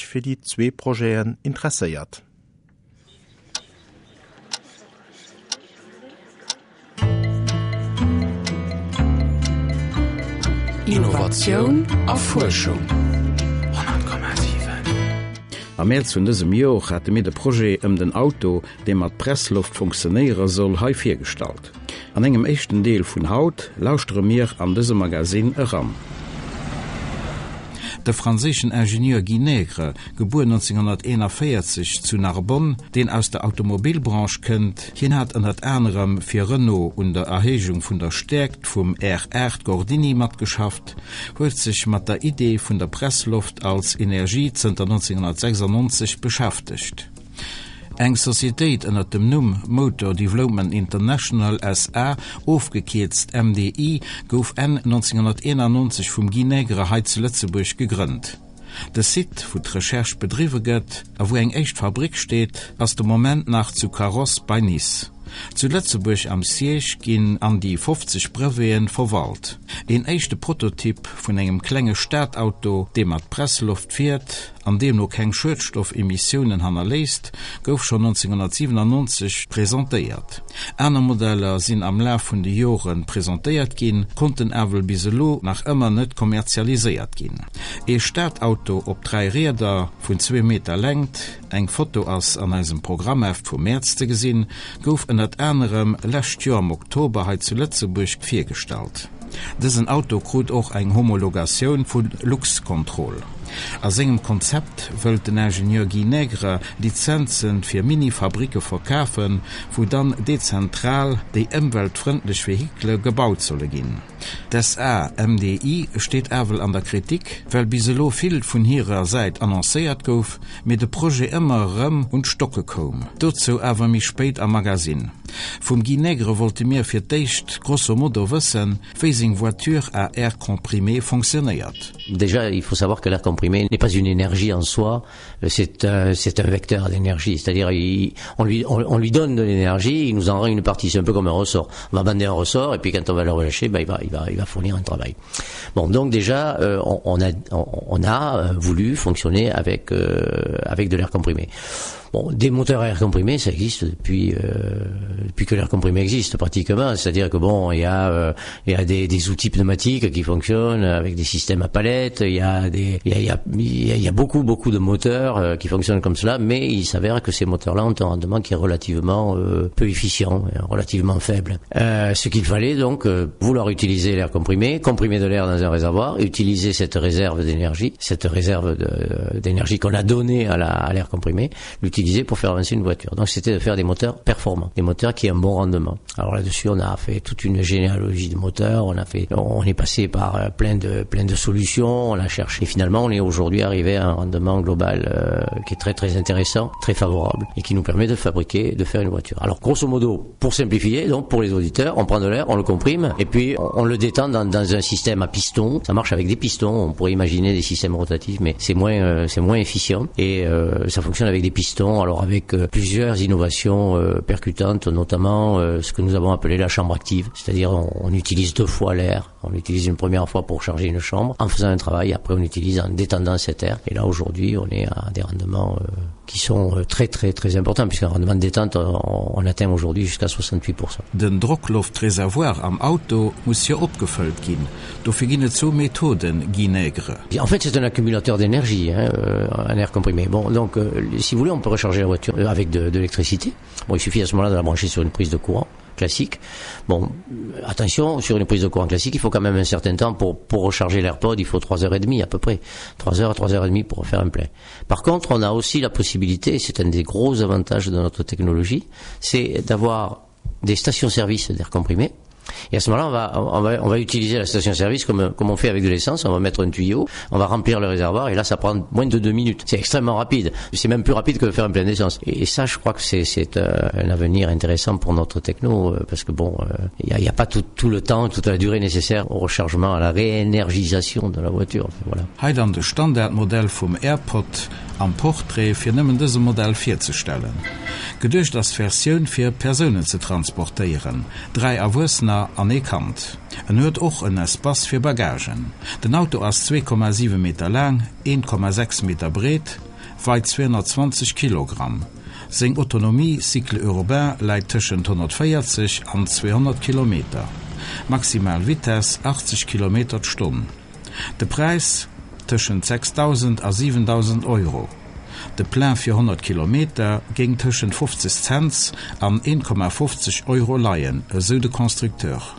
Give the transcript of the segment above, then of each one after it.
Fir déi zwee Projeten interesséiert. Innovatioun a Fuerschung. 100,7. Am Mäerz vun dësem Jor hate mir de Projet ëm den Auto, dee mat Pressloft funktionéiere soll, hei virgestallt. An engem éischten Deel vun haut lauschtere mir an dëse Magasinn eran. De franséischen Ingenieur Guy Nègre, gebuer 1941 zu Narbonne, deen aus der Automobilbranche kënnt, hien hat ënnert anerem fir Renault un der Erhéijung vun der Stäerkt vum R8 Gordini matgeschafft, huet sech mat der Idee vun der Pressloft als Energie zënter 1996 beschäftegt. Eng Societéit ënner dem Numm Motor Development International SA, ofgekierzt MDI, gouf Enn 1991 vum Guy Nègre hei zu Lëtzebuerg gegrënnt. De Site, wou d'Recherche bedriwwe gëtt a wou eng éischt Fabrick steet, ass de Moment nach zu Carros bei Nice. Zu Lëtzebuerg am Siège ginn an déi 50 Breveten verwalt. Een éischte Prototyp vun engem klenge Stadauto, dee mat Pressloft fiert an deemno keng Schuedstoffemissiounen hannerléisst, gouf schonn 1997 presentéiert. Aner Modeller sinn am Laf vun de Jore presentéiert ginn, konnten awer bis elo nach ëmmer net kommerzialiséiert ginn. Ee Stadauto op 3 Rieder vun zwee Meter Längt, eng Foto ass an eisem Programmheft vum Mäerz ze gesinn, gouf ënnert anerem lescht Joer am Oktober hei zu Lëtzebuerg virgestallt. Dësen Auto krut och eng Homologatioun vu Luxcontrol. A sengem Konzept wëllt den Ingenieur Guy Nègre Lizenze fir Mini-Fabricke verkafen, wou dann dezentral déi ëmweltfrëndlech Vehikele gebaut solle ginn. D'SAMDI steet ewell an der Kritik, well bis elo vill vun hirer Säit annoncéiert gouf, mee de Projet ëmmer erëm un d'Stocke koum. Dozou awer méi spéit am Magasinn. Vum Guy Nègre wollte mir fir d'éischt grosso modo wëssen, wéi seng Voiture à air comprimé fonctionnéiert. Déjà, il faut savoir que l'air comprimé n'est pas une énergie en soi, c'est un, c'est un vecteur d'énergie, c'est-à-dire il, on lui, on, on lui donne de l'énergie, il nous en rend une partie, c'est un peu comme un ressort. On va bander un ressort et puis quand on va le relâcher, ben, il va, il va, il va fournir un travail. Bon, donc déjà, euh, on, on a, on, on a euh, voulu fonctionner avec, euh, avec de l'air comprimé. Bon, des moteurs à air comprimé, ça existe depuis, euh, depuis que l'air comprimé existe pratiquement. C'est-à-dire que bon, il y a, euh, il y a des, des outils pneumatiques qui fonctionnent avec des systèmes à palettes, il y a, des, il y a, il y a, il y a beaucoup, beaucoup de moteurs euh, qui fonctionnent comme cela, mais il s'avère que ces moteurs-là ont un rendement qui est relativement euh, peu efficient, relativement faible. Euh, ce qu'il fallait donc, euh, vouloir utiliser l'air comprimé, comprimer de l'air dans un réservoir, utiliser cette réserve d'énergie, cette réserve d'énergie qu'on a donnée à l'air comprimé, l'utiliser pour faire avancer une voiture. Donc c'était de faire des moteurs performants, des moteurs qui ont un bon rendement. Alors là-dessus, on a fait toute une généalogie de moteurs, on a fait, on est passé par euh, plein de, plein de solutions, on a cherché. Et finalement, on est aujourd'hui arrivé à un rendement global euh, qui est très très intéressant, très favorable et qui nous permet de fabriquer, de faire une voiture. Alors grosso modo, pour simplifier, donc pour les auditeurs, on prend de l'air, on le comprime et puis on, on le détend dans, dans un système à piston. Ça marche avec des pistons, on pourrait imaginer des systèmes rotatifs, mais c'est moins, euh, c'est moins efficient et euh, ça fonctionne avec des pistons, alors avec euh, plusieurs innovations euh, percutantes, notamment euh, ce que nous avons appelé la chambre active, c'est-à-dire on, on utilise deux fois l'air, on l'utilise une première fois pour charger une chambre en faisant un travail, après on l'utilise en détendant cet air. Et là aujourd'hui on est à des rendements euh, qui sont euh, très très très importants puisqu'un rendement de détente on, on atteint aujourd'hui jusqu'à 68%. Den Drockloftreservoir am Auto muss jo opgefëllt ginn. Dofir ginn et zwou Methoden, Guy Nègre. En fait c'est un accumulateur d'énergie hein, euh, un air comprimé. Bon donc euh, si vous voulez on peut recharger la voiture euh, avec de, de l'électricité. Bon il suffit à ce moment-là de la brancher sur une prise de courant classique. Bon attention sur une prise de courant classique il faut quand même un certain temps pour, pour recharger l'airpod il faut 3h30 à peu près 3h 3h30 pour faire un plein. Par contre on a aussi la possibilité c'est un des gros avantages de notre technologie c'est d'avoir des stations service d'air comprimé Et à ce moment-là, on va, on va, on va utiliser la station-service comme, comme on fait avec de l'essence. On va mettre un tuyau, on va remplir le réservoir et là, ça prend moins de deux minutes. C'est extrêmement rapide. C'est même plus rapide que de faire un plein d'essence. Et, et ça, je crois que c'est euh, un avenir intéressant pour notre techno euh, parce que bon, il euh, n'y a, a pas tout, tout le temps, toute la durée nécessaire au rechargement, à la réénergisation de la voiture. Enfin, voilà. Hei dann de Standardmodell vum AirPod am Portrait fir nëmmen dëse Modell virzestellen. Geduecht ass d'Versioun fir Persounen ze transportéieren, 3 Erwuessener an ee Kand. En huet och en Espace fir Bagagen. Den Auto ass 2,7 Meter laang, 1,6 Meter breet, weit 220 Kilogramm. Seng Autonomie cycle urbain läit tëschent 140 an 200 Kilometer. Maximal Vitess 80 Kilometer d'Stonn. De Präis, tëschent 6.000 a 7.000 Euro. De Plein fir 100 Kilometer géing tëschent 50 Cents an 1,50 Euro leien, esou de Constructeur.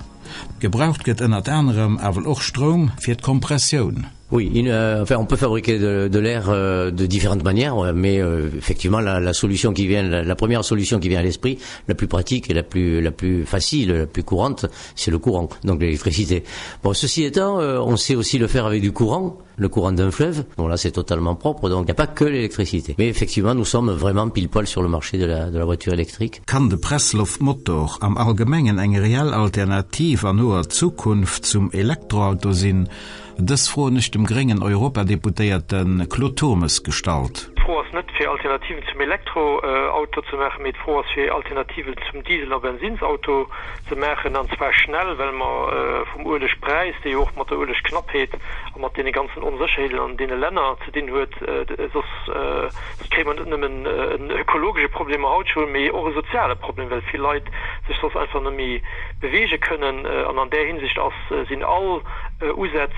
Gebraucht gëtt ënnert anerem awer och Stroum fir d'Kompressioun. Oui, une, euh, enfin, on peut fabriquer de, de l'air euh, de différentes manières, mais euh, effectivement la, la solution qui vient la, la première solution qui vient à l'esprit, la plus pratique et la plus, la plus facile, la plus courante, c'est le courant, donc l'électricité. Bon, ceci étant, euh, on sait aussi le faire avec du courant, le courant d'un fleuve. Bon là c'est totalement propre, donc il n'y a pas que l'électricité. Mais effectivement, nous sommes vraiment pile poil sur le marché de la, de la voiture électrique. Kann de Pressloftmotor am Allgemengen eng reell Alternativ an noer Zukunft zum Elektroauto sinn? Dës Fro hunn ech dem gréngen Europadeputéierte Claude Turmes gestallt. D'Fro ass net fir Alternativen zum Elektroauto ze maachen, mee d'Fro ass fir Alternativen zum Diesel a Bensinsauto ze maachen, an zwar schnell, well mer vum Uelegpräis, dee jo och mat der Uelegknappheet a mat deene ganzen Onsécherheeten an deene Länner ze dinn huet, soss kréie mer net nëmmen en ökologesche Problem haut scho, mee och e soziale Problem, well vill Leit sech soss einfach net méi beweege kënnen. An an där Hinsicht ass, sinn all Usätz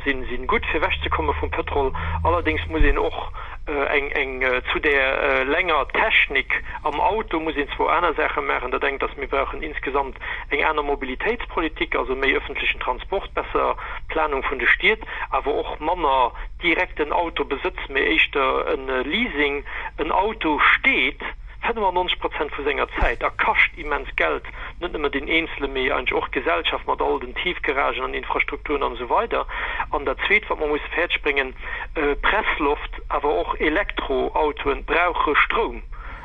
si gutt, fir ewechzekomme vum Pëtrol. Allerdéngs muss een och eng, eng zu där lenger Technik am Auto muss een zwou aner Saache maachen. Dat engt ass, mir brauchen insgesamt eng aner Mobilitéitspolitik, also méi öffentlechen Transport, besser Planung vun de Stied, awer och manner direkten Autobesëtz, mee éischter e Leasing. En Auto steet 95 Prozent vu senger Zäit a kascht immens Geld, net nëmme den Eenzele mee eigentlech och d'Gesellschaft mat all den Tiefgaragen an Infrastrukturen an esou weider. An dat Zweet, wat mer musse fäerdeg bréngen, Pressloft, awer och Elektroautoen brauche Stroum.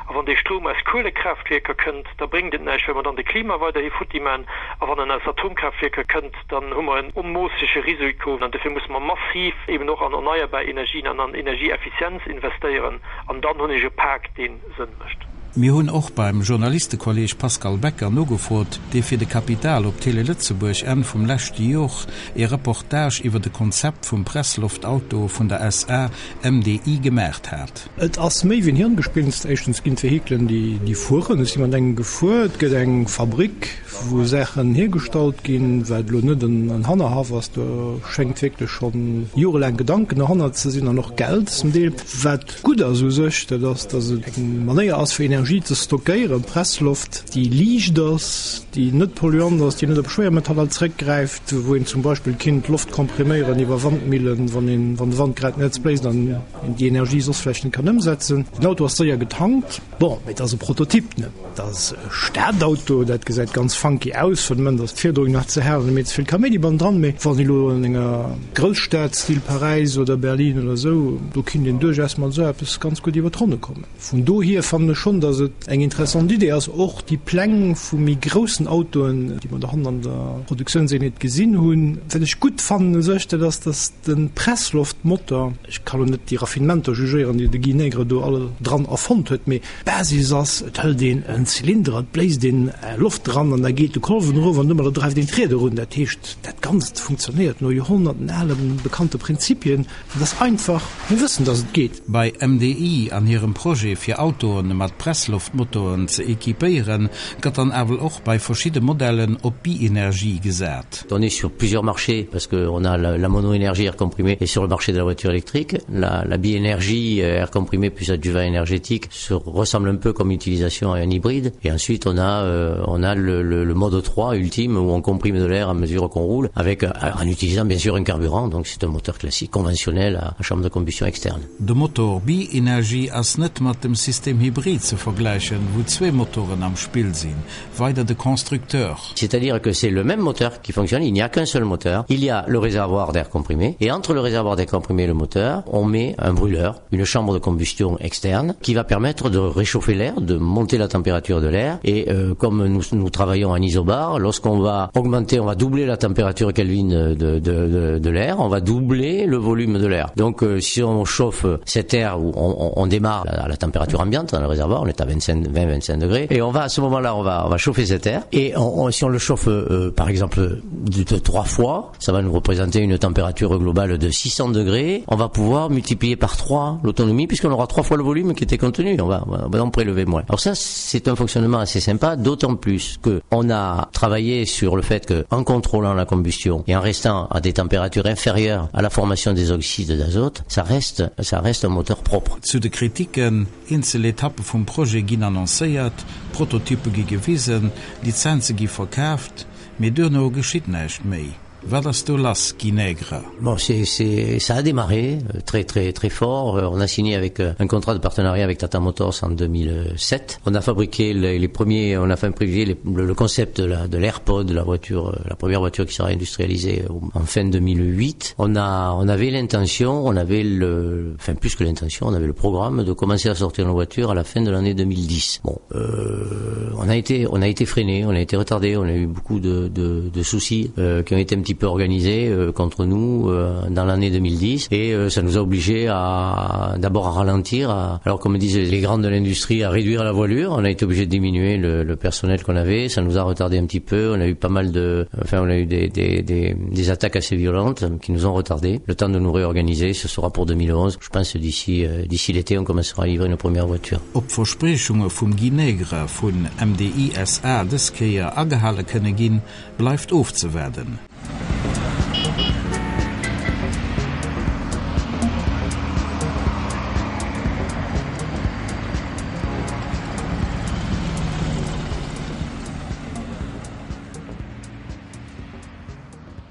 A wann dee Stroum aus Kuelekraaftwierker kënnt, da bréngt et näischt, well mer dann de Klima weiderhi futti man. A wann en aus Atomkraaftwierker kënnt, dann hu mer en onmoossege Risiko. An dofir musse mer massiv eben och an erneierbar Energien an an Energieeffizienz investéieren. An dann hunn ech e Pak, dee Sënn mécht. Mir hunn och beim Journalistekolleg Pascal Becker nogefrot, dee fir de Capital op Télé Lëtzebuerg Enn vum leschte Jor ee Reportage iwwer de Konzept vum Pressloftauto vun der SA MDI gemaacht hat. Et ass méi wéi en Hirngespinst. Éischtens ginn d'Vehikelen, déi fueren, et si mat engem gefuer, et gëtt eng Fabrick, wou Saachen hiergestallt ginn, wat elo net en Hannerhaff ass, do schéngt wierklech scho jorelaang Gedanken derhannert ze sinn an och Geld zum Deel. Wat gutt ass u sech, dat ass, datt et eng Manéier ass, fir Energie ze stockéieren, Pressloft, déi liicht ass, déi net polluant ass, déi net op Schwéiermetaller zréckgräift, wou een zum Beispill kinnt Loft kompriméieren iwwer Wandmillen, wann een, wann de Wand grad net bléist an een déi Energie soss vläicht net kann ëmsetzen. Den Auto ass séier getankt. Bon, mee et ass e Prototyp, ne? Et ass e Stadauto, dat gesäit ganz funky aus. Fir de Moment ass d'Fiederung nach ze haart an méi ze vill Kaméidi bannendran. Mee wann ee lo an enger Grousstad, Style Paräis oder Berlin oder esou, do kinnt een duerchaus mat esou eppes ganz gutt iwwer d'Ronne kommen. Vun dohier fannen ech schonn, datt et eng interessant Idee ass. Och déi Pläng vu méi groussen Autoen, déi mer dohannen an der Produktiounseenheet gesinn hunn. Wat ech gutt fannen u sech, dat ass, datt de Pressloftmotor, ech ka lo net déi Raffinementer jugéieren, déi de Guy Nègre do all dran erfonnt huet, mee d'Basis ass, et hëlt een en Zylinder, et bléist een Loft dran an da geet de Kolwen erof an domadder dreift een d'Rieder un. Dat heescht, dat Ganzt funktionéiert no Joerhonnerten ale bekannte Prinzipien. Et ass einfach, mir wëssen, dass et geet. Bei MDI an hirem Projet fir Autoen mat Pressloftmotoren ze equipéieren, gëtt dann awer och bei verschidde Modellen op Bi-Energie gesat. On est sur plusieurs marchés parce que on a la, la monoénergie air comprimé et sur le marché de la voiture électrique, la, la biénergie euh, air comprimé plus adjuvant énergétique se ressemble un peu comme utilisation à un hybride. Et ensuite on a, euh, on a le, le, le mode 3 ultime où on comprime de l'air à mesure qu'on roule avec, euh, en utilisant bien sûr un carburant, donc c'est un moteur classique conventionnel à, à chambre de combustion externe. De Motor Bi-Energie ass net mat dem System Hybrid ze vergläichen, wou zwee Motoren am Spill sinn, weider de Constructeur. C'est-à-dire que c'est le même moteur qui fonctionne, il n'y a qu'un seul moteur. Il y a le réservoir d'air comprimé et entre le réservoir d'air comprimé et le moteur, on met un brûleur, une chambre de combustion externe qui va permettre de réchauffer l'air, de monter la température de l'air et euh, comme nous, nous travaillons en isobar, lorsqu'on va augmenter, on va doubler la température Kelvin de, de, de, de l'air, on va doubler le volume de l'air. Donc euh, si on chauffe cet air où on, on, on démarre à la température ambiante dans le réservoir, on est à être à 25 20 25 degrés et on va à ce moment là on va on va chauffer cet air et on, on, si on le chauffe euh, par exemple de, de trois fois ça va nous représenter une température globale de 600 degrés on va pouvoir multiplier par trois l'autonomie puisqu'on aura trois fois le volume qui était contenu on va, on va en prélever moins alors ça c'est un fonctionnement assez sympa d'autant plus que on a travaillé sur le fait que en contrôlant la combustion et en restant à des températures inférieures à la formation des oxydes d'azote ça reste ça reste un moteur propre Zu de Kritiken, Eenzel Etappe vum Projet ginn annoncéiert, Prototyppe gi gewisen, Lizenze gi verkaaft, mee duerno geschitt näischt méi. Wat ass do lass, Guy Nègre? Bon, c'est, c'est, ça a démarré euh, très très très fort. Euh, on a signé avec euh, un contrat de partenariat avec Tata Motors en 2007. On a fabriqué les, les premiers, on a fait privilégier les, le, le concept de la, de l'AirPod, la voiture, la première voiture qui sera industrialisée en fin 2008. On a, on avait l'intention, on avait le, enfin plus que l'intention, on avait le programme de commencer à sortir nos voitures à la fin de l'année 2010. Bon, euh, on a été, on a été freiné, on a été retardé, on a eu beaucoup de, de, de soucis euh, qui ont été un petit peu organisés euh, contre nous euh, dans l'année 2010 et euh, ça nous a obligés à d'abord à ralentir à, alors comme disent les grandes de l'industrie à réduire la voilure on a été obligé de diminuer le, le personnel qu'on avait ça nous a retardé un petit peu on a eu pas mal de enfin on a eu des, des, des, des attaques assez violentes qui nous ont retardé le temps de nous réorganiser ce sera pour 2011 je pense d'ici euh, d'ici l'été on commencera à livrer nos premières voitures Ob d'Verspriechunge vum Guy Nègre vun MDI SA dës Kéier agehale kënne ginn, bleift ofzewaarden.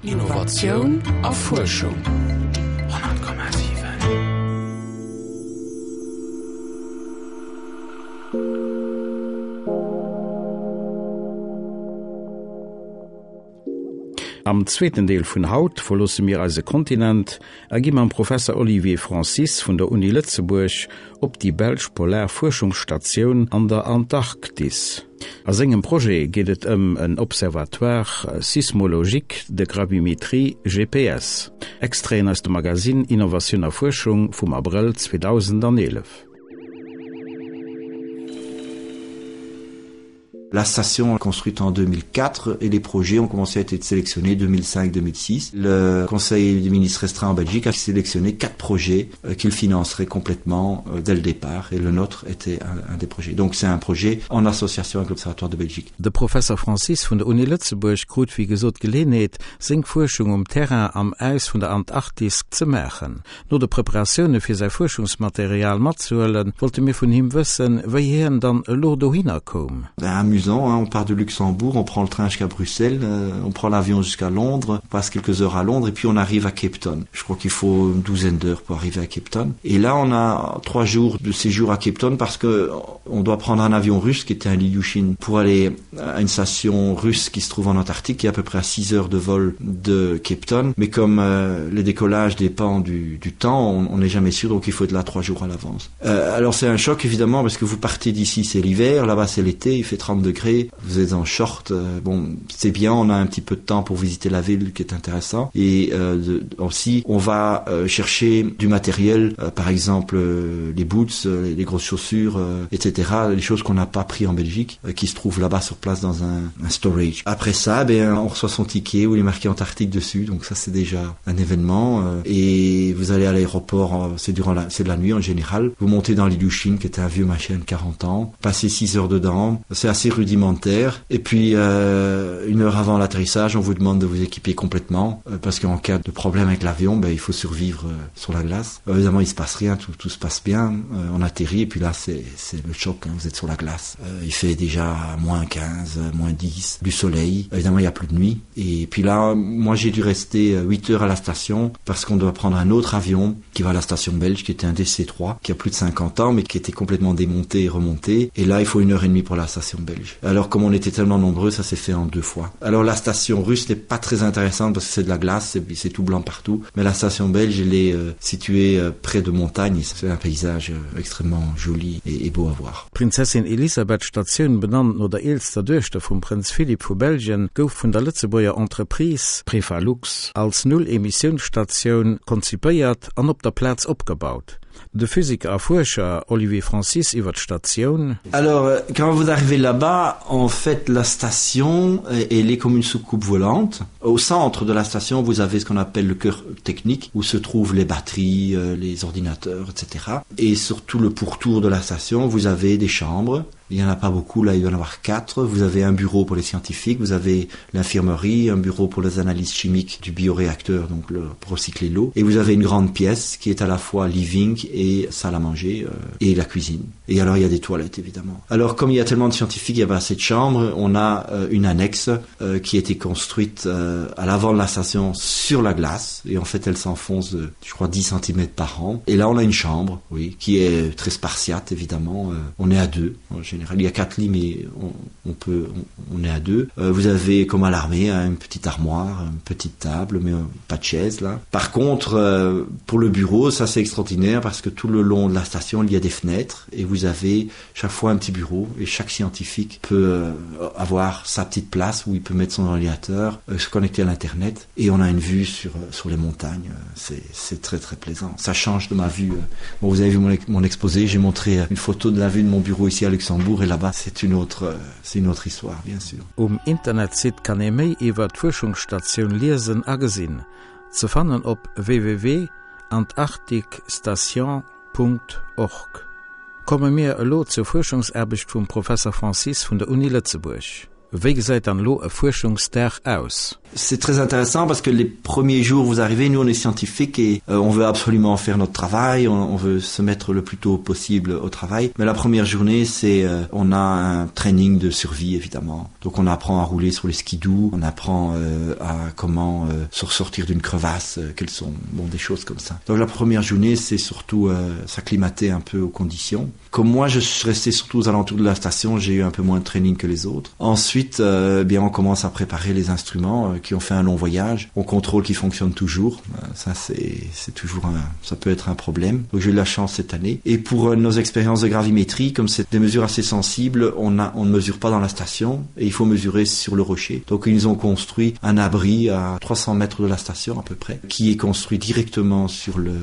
Innovatioun a Fuerschung. 100,7. Am zweeten Deel vun haut verloosse mir eise Kontinent a gi mam Professer Olivier Francis vun der Uni Lëtzebuerg op déi belsch polar Fuerschungsstatioun an der Antarktis. A sengem Projet geet et ëm en Observatoire sismologique de gravimétrie, GPS. Extraiten aus dem Magasinn Innovatioun a Fuerschung vum Abrëll 2011. La station construite en 2004 et les projets ont commencé à être sélectionnés 2005-2006. Le Conseil des ministres restreint en Belgique a sélectionné quatre projets euh, qu'il financerait complètement euh, dès le départ et le nôtre était un, un des projets. Donc c'est un projet en association avec l'Observatoire de Belgique. De Professor Francis vun der Uni Lëtzebuerg krut wéi gesot d'Geleeënheet, seng Fuerschung um Terrain am Äis vun der Antarktis ze maachen. No de Preparatioune fir säi Fuerschungsmaterial matzehuelen, wollte mir vun him wëssen, wéi hien dann elo dohinner koum. Amusant, hein, on part de Luxembourg, on prend le train jusqu'à Bruxelles, euh, on prend l'avion jusqu'à Londres, on passe quelques heures à Londres et puis on arrive à Cape Town. Je crois qu'il faut une douzaine d'heures pour arriver à Cape Town. Et là, on a trois jours de séjour à Cape Town parce que on doit prendre un avion russe qui était un Lilyushin pour aller à une station russe qui se trouve en Antarctique, qui est à peu près à 6 heures de vol de Cape Town. Mais comme euh, les décollages dépendent du, du temps, on n'est jamais sûr, donc il faut être là trois jours à l'avance. Euh, alors c'est un choc évidemment parce que vous partez d'ici, c'est l'hiver, là-bas c'est l'été, il fait 30 degrés, vous êtes en short, euh, bon c'est bien, on a un petit peu de temps pour visiter la ville qui est intéressant. Et euh, de, aussi on va euh, chercher du matériel, euh, par exemple euh, les boots, euh, les grosses chaussures, euh, etc., les choses qu'on n'a pas pris en Belgique, euh, qui se trouvent là-bas sur place dans un, un storage. Après ça, ben, on reçoit son ticket où il est marqué Antarctique dessus, donc ça c'est déjà un événement. Euh, et vous allez à l'aéroport, euh, c'est durant la, c'est de la nuit en général. Vous montez dans l'Ilyushin qui était un vieux machin de 40 ans, passez 6 heures dedans, c'est assez rudimentaire. Et puis euh, une heure avant l'atterrissage, on vous demande de vous équiper complètement euh, parce qu'en cas de problème avec l'avion, ben, il faut survivre euh, sur la glace. Euh, évidemment, il se passe rien, tout, tout se passe bien. Euh, on atterrit et puis là c'est le choc, hein, vous êtes sur la glace. Euh, il fait déjà moins 15, moins 10, du soleil. Évidemment, il n'y a plus de nuit. Et puis là, moi j'ai dû rester 8 heures à la station parce qu'on doit prendre un autre avion qui va à la station belge, qui était un DC-3, qui a plus de 50 ans, mais qui était complètement démonté et remonté. Et là, il faut une heure et demie pour la station belge. Alors comme on était tellement nombreux, ça s'est fait en deux fois. Alors la station russe n'est pas très intéressante parce que c'est de la glace, c'est tout blanc partout. Mais la station belge, elle est euh, située euh, près de montagnes. C'est un paysage euh, extrêmement joli et, et beau à voir. D'Prinzessin Elisabeth Statioun, benannt no der eelster Duechter vum Prënz Philippe vu Belgien, gouf vun der Lëtzebuerger Entreprise Prefalux als Null-Emissiouns-Statioun konzipéiert an op der Plaz opgebaut. De Physiker a Fuerscher Olivier Francis iwwer d'Statioun. Alors euh, quand vous arrivez là-bas, en fait la station elle est comme une soucoupe volante. Au centre de la station, vous avez ce qu'on appelle le cœur technique où se trouvent les batteries, euh, les ordinateurs, etc. Et surtout le pourtour de la station, vous avez des chambres Il n'y en a pas beaucoup, là il va y en avoir quatre. Vous avez un bureau pour les scientifiques, vous avez l'infirmerie, un bureau pour les analyses chimiques du bioréacteur, donc le, pour recycler l'eau. Et vous avez une grande pièce qui est à la fois living et salle à manger euh, et la cuisine. Et alors il y a des toilettes évidemment. Alors comme il y a tellement de scientifiques, il y a pas assez de chambres, on a euh, une annexe euh, qui a été construite euh, à l'avant de la station sur la glace. Et en fait elle s'enfonce de, je crois 10 cm par an. Et là on a une chambre oui, qui est très spartiate évidemment. Euh, on est à deux en général. Il y a quatre lits mais on, on peut on, on est à deux. Euh, vous avez comme à l'armée une petite armoire, une petite table mais euh, pas de chaise là. Par contre euh, pour le bureau ça c'est extraordinaire parce que tout le long de la station il y a des fenêtres et vous avez chaque fois un petit bureau et chaque scientifique peut euh, avoir sa petite place où il peut mettre son ordinateur, euh, se connecter à l'internet et on a une vue sur, euh, sur les montagnes. C'est très très plaisant. Ça change de ma vue. Bon, vous avez vu mon, mon exposé, j'ai montré une photo de la vue de mon bureau ici à Luxembourg et là-bas c'est une autre c'est une autre histoire bien sûr. Um Internetsite kann ee méi iwwer d'Fuerschungsstatioun liesen a gesinn, ze fannen op www.antarcticstation.org. Komme mir elo zur Fuerschungsaarbecht vum Professer Francis vun der Uni Lëtzebuerg. Wéi gesäit dann elo e Fuerschungsdag aus? C'est très intéressant parce que les premiers jours vous arrivez, nous on est scientifique et euh, on veut absolument faire notre travail, on, on veut se mettre le plus tôt possible au travail. Mais la première journée, c'est euh, on a un training de survie évidemment. Donc on apprend à rouler sur les skidoo, on apprend euh, à comment euh, se ressortir d'une crevasse, euh, quelles sont bon, des choses comme ça. Donc la première journée, c'est surtout euh, s'acclimater un peu aux conditions. Comme moi, je suis resté surtout aux alentours de la station, j'ai eu un peu moins de training que les autres. Ensuite, euh, bien on commence à préparer les instruments euh, qui ont fait un long voyage. On contrôle qui fonctionne toujours. Euh, ça c'est toujours un, ça peut être un problème. Donc j'ai eu la chance cette année. Et pour euh, nos expériences de gravimétrie, comme c'est des mesures assez sensibles, on, a, on ne mesure pas dans la station et il faut mesurer sur le rocher. Donc ils ont construit un abri à 300 mètres de la station à peu près, qui est construit directement sur le,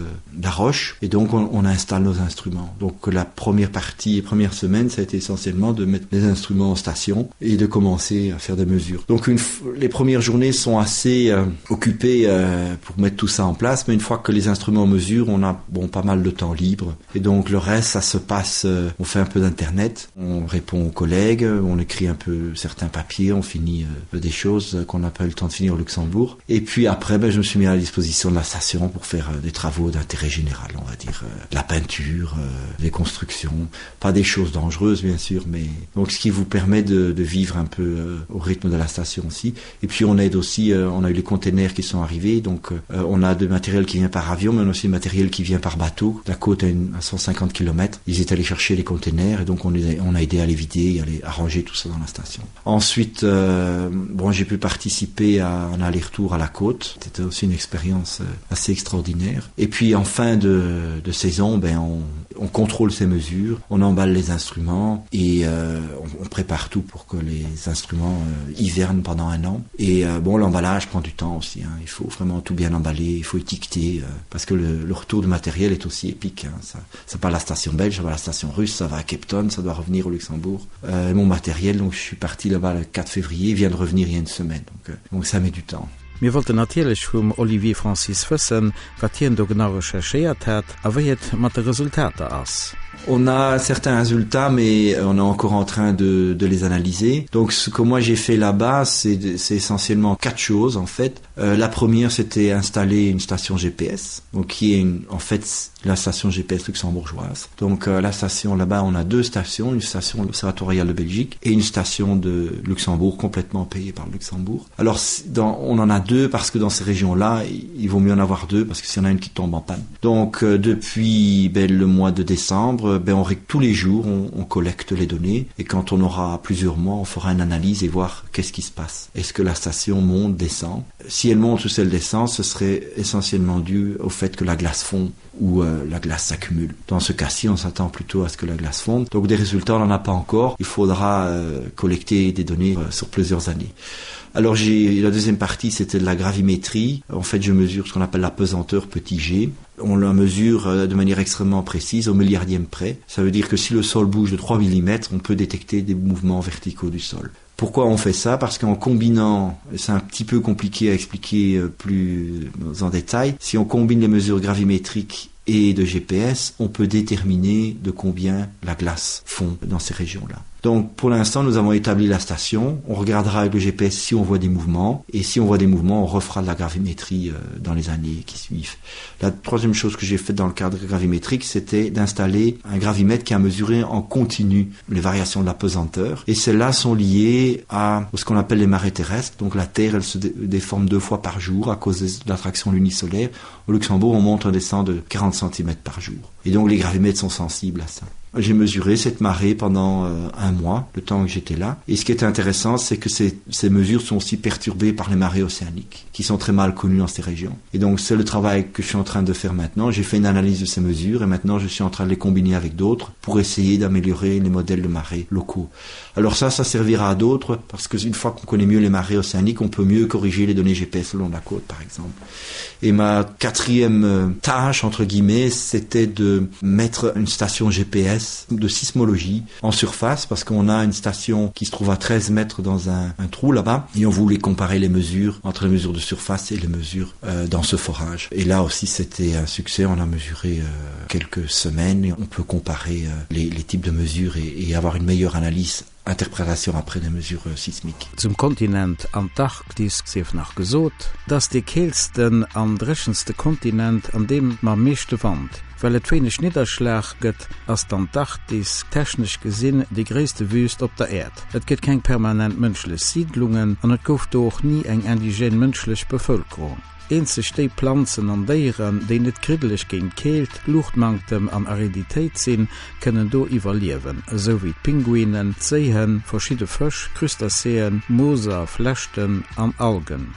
la roche et donc on, on installe nos instruments. Donc la première partie première semaine, ça a été essentiellement de mettre les instruments en station et de commencer à faire des mesures. Donc une, les premières journées sont assez euh, occupées euh, pour mettre tout ça en place, mais une fois que les instruments mesurent, on a bon, pas mal de temps libre. Et donc le reste, ça se passe, euh, on fait un peu d'internet, on répond aux collègues, on écrit un peu certains papiers, on finit euh, des choses qu'on n'a pas eu le temps de finir au Luxembourg. Et puis après, ben, je me suis mis à la disposition de la station pour faire euh, des travaux d'intérêt général, on va dire euh, la peinture, euh, des constructions, pas des choses dangereuses bien sûr, mais donc ce qui vous permet de, de vivre un peu euh, au rythme de la station aussi. Et puis on aide aussi, euh, on a eu les containers qui sont arrivés, donc euh, on a de matériel qui vient par avion, mais on a aussi du matériel qui vient par bateau. La côte à, une, à 150 km, ils étaient allés chercher les containers et donc on, les a, on a aidé à les vider et à les arranger tout ça dans la station. Ensuite, euh, bon, j'ai pu participer à un aller-retour à la côte. C'était aussi une expérience euh, assez extraordinaire. Et puis en fin de, de saison, ben, on, on contrôle ces mesures, on emballe les instruments et euh, on, on prépare tout pour que les instruments euh, hivernent pendant un an. Et euh, bon, l'emballage prend du temps aussi. Hein. Il faut vraiment tout bien emballer, il faut étiqueter euh, parce que le, le retour de matériel est aussi épique. Hein. Ça, ça part à la station belge, ça va à la station russe, ça va à Cape Town, ça doit revenir au Luxembourg. Euh, mon matériel, donc je suis parti là-bas le 4 février, vient de revenir il y a une semaine. Donc, euh, donc ça met du temps. Mir wollten natierlech vum Olivier Francis wëssen, wat hien do genau recherchéiert hat a wéi et mat de Resultater ass. On a certains résultats, mais on est encore en train de, de les analyser. Donc ce que moi j'ai fait là-bas, c'est essentiellement quatre choses en fait. Euh, la première, c'était installer une station GPS, donc qui est une, en fait la station GPS luxembourgeoise. Donc euh, la station là-bas, on a deux stations, une station de l'Observatoire royal de Belgique et une station de Luxembourg complètement payée par le Luxembourg. Alors dans, on en a deux parce que dans ces régions-là, il vaut mieux en avoir deux parce que s'il y en a une qui tombe en panne. Donc euh, depuis ben, le mois de décembre, ben, on, tous les jours, on, on collecte les données et quand on aura plusieurs mois, on fera une analyse et voir qu'est-ce qui se passe. Est-ce que la station monte, descend Si elle monte ou si elle descend, ce serait essentiellement dû au fait que la glace fond ou euh, la glace s'accumule. Dans ce cas-ci, on s'attend plutôt à ce que la glace fonde. Donc des résultats, on n'en a pas encore. Il faudra euh, collecter des données euh, sur plusieurs années. Alors j'ai la deuxième partie, c'était de la gravimétrie. En fait, je mesure ce qu'on appelle la pesanteur petit g. On la mesure euh, de manière extrêmement précise au milliardième près. Ça veut dire que si le sol bouge de 3 mm, on peut détecter des mouvements verticaux du sol. Pourquoi on fait ça Parce qu'en combinant, c'est un petit peu compliqué à expliquer euh, plus en détail, si on combine les mesures gravimétriques et de GPS, on peut déterminer de combien la glace fond dans ces régions-là. Donc pour l'instant, nous avons établi la station, on regardera avec le GPS si on voit des mouvements, et si on voit des mouvements, on refera de la gravimétrie euh, dans les années qui suivent. La troisième chose que j'ai faite dans le cadre gravimétrique, c'était d'installer un gravimètre qui a mesuré en continu les variations de la pesanteur, et celles-là sont liées à ce qu'on appelle les marées terrestres. Donc la Terre, elle se déforme deux fois par jour à cause de l'attraction lunisolaire. Au Luxembourg, on monte un descend de 40 cm par jour. Et donc les gravimètres sont sensibles à ça. J'ai mesuré cette marée pendant euh, un mois, le temps que j'étais là. Et ce qui est intéressant, c'est que ces, ces mesures sont aussi perturbées par les marées océaniques, qui sont très mal connues dans ces régions. Et donc c'est le travail que je suis en train de faire maintenant. J'ai fait une analyse de ces mesures et maintenant je suis en train de les combiner avec d'autres pour essayer d'améliorer les modèles de marées locaux. Alors ça, ça servira à d'autres parce qu'une fois qu'on connaît mieux les marées océaniques, on peut mieux corriger les données GPS le long de la côte, par exemple. Et ma quatrième euh, tâche, entre guillemets, c'était de mettre une station GPS de sismologie en surface parce qu'on a une station qui se trouve à 13 mètres dans un, un trou là-bas et on voulait comparer les mesures entre les mesures de surface et les mesures euh, dans ce forage. Et là aussi c'était un succès, on a mesuré euh, quelques semaines et on peut comparer euh, les, les types de mesures et, et avoir une meilleure analyse interprétation après des mesures euh, sismiques. Zum Kontinent Antarktis sief nach gesot, et ass dee keelsten an dréchenste Kontinent an deem mam meeschte Wand. Well et wéineg Nidderschlag gëtt, ass d'Antarktis technesch gesinn déi gréisste Wüüst op der Äerd. Et gëtt keng permanent mënschlech Siidlungen an et gouf do och ni eng indigène mënschlech Bevëlkerung. Eenzeg déi Planzen an Déieren, déi net kriddeleg géint Keelt, Luuchtmanktem an Ariditéit sinn, kënnen do iwwerliewen, esou wéi d'Pinguinen, d'Séihënn, verschidde Fësch, Crustacéen, Mooser, Flechten an Algen.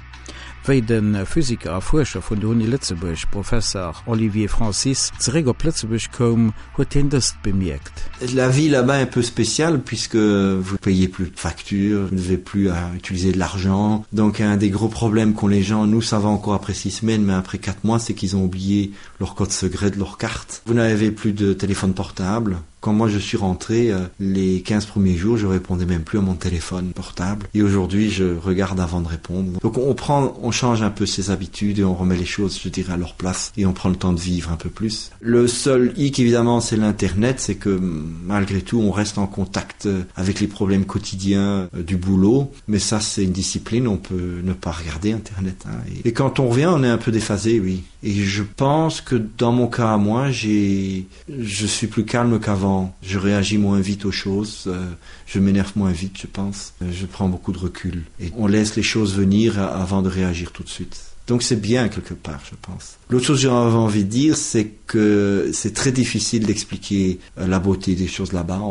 Wéi de Physiker a Fuerscher vun der Uni Lëtzebuerg, Professer Olivier Francis, zeréck op Lëtzebuerg koum, huet hien dëst bemierkt. La vie là-bas est un peu spéciale puisque vous payez plus de factures, vous n'avez plus à utiliser de l'argent. Donc un des gros problèmes qu'ont les gens, nous ça va encore après six semaines, mais après quatre mois, c'est qu'ils ont oublié leur code secret de leur carte. Vous n'avez plus de téléphone portable. Quand moi je suis rentré euh, les 15 premiers jours, je répondais même plus à mon téléphone portable. Et aujourd'hui, je regarde avant de répondre. Donc on prend, on change un peu ses habitudes et on remet les choses, je dirais, à leur place et on prend le temps de vivre un peu plus. Le seul hic évidemment, c'est l'internet, c'est que malgré tout, on reste en contact euh, avec les problèmes quotidiens euh, du boulot. Mais ça, c'est une discipline, on peut ne pas regarder internet. Hein. Et, et quand on revient, on est un peu déphasé, oui. Et je pense que dans mon cas à moi, j'ai je suis plus calme qu'avant. Je réagis moins vite aux choses, euh, je m'énerve moins vite, je pense. Euh, je prends beaucoup de recul et on laisse les choses venir avant de réagir tout de suite. Donc c'est bien quelque part, je pense. L'autre chose que j'avais envie de dire, c'est que c'est très difficile d'expliquer euh, la beauté des choses là-bas.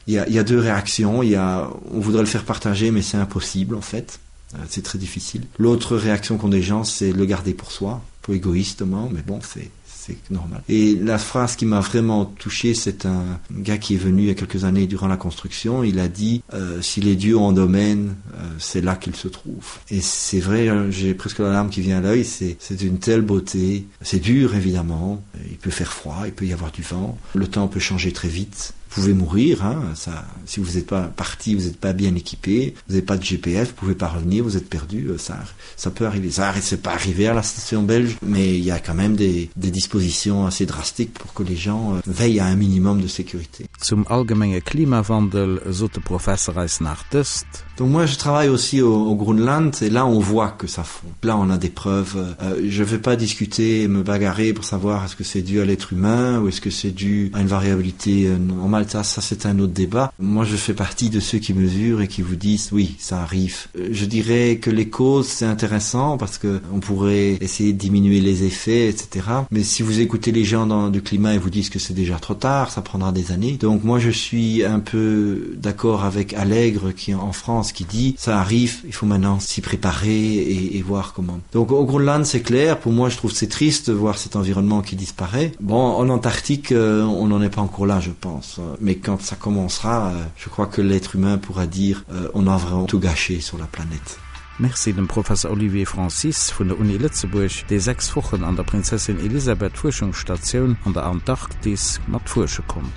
Il y, a, y a deux réactions, il y a, on voudrait le faire partager, mais c'est impossible en fait. C'est très difficile. L'autre réaction qu'ont des gens, c'est le garder pour soi, peu égoïstement, mais bon, c'est c'est normal. Et la phrase qui m'a vraiment touché, c'est un gars qui est venu il y a quelques années durant la construction, il a dit euh, si les dieux en domaine, euh, c'est là qu'ils se trouvent. Et c'est vrai, j'ai presque la larme qui vient à l'œil, c'est une telle beauté. C'est dur évidemment, il peut faire froid, il peut y avoir du vent, le temps peut changer très vite pouvez mourir hein, ça si vous n'êtes pas parti vous n'êtes pas bien équipé vous n'avez pas de GPS vous pouvez pas revenir vous êtes perdu euh, ça ça peut arriver ça c'est pas arrivé à la station belge mais il y a quand même des, des dispositions assez drastiques pour que les gens euh, veillent à un minimum de sécurité zum allgemenge Klimawandel sot de Professer eis nach dëst. Donc moi je travaille aussi au, au Groenland et là on voit que ça fond. Là on a des preuves. Euh, je vais pas discuter et me bagarrer pour savoir est-ce que c'est dû à l'être humain ou est-ce que c'est dû à une variabilité euh, normale. Ça, ça c'est un autre débat. Moi je fais partie de ceux qui mesurent et qui vous disent oui ça arrive. Euh, je dirais que les causes c'est intéressant parce que on pourrait essayer de diminuer les effets etc. Mais si vous écoutez les gens dans, du climat et vous disent que c'est déjà trop tard, ça prendra des années. Donc moi je suis un peu d'accord avec Allègre qui est en France qui dit ça arrive, il faut maintenant s'y préparer et, et voir comment. Donc au Groenland c'est clair, pour moi je trouve c'est triste de voir cet environnement qui disparaît. Bon en Antarctique euh, on n'en est pas encore là je pense, mais quand ça commencera, euh, je crois que l'être humain pourra dire euh, on a vraiment tout gâché sur la planète. Merci dem Professer Olivier Francis vun der Uni Lëtzebuerg, dee 6 Wochen an der Prinzessin Elisabeth Fuerschungsstatioun an der Antarktis mat fuersche konnt.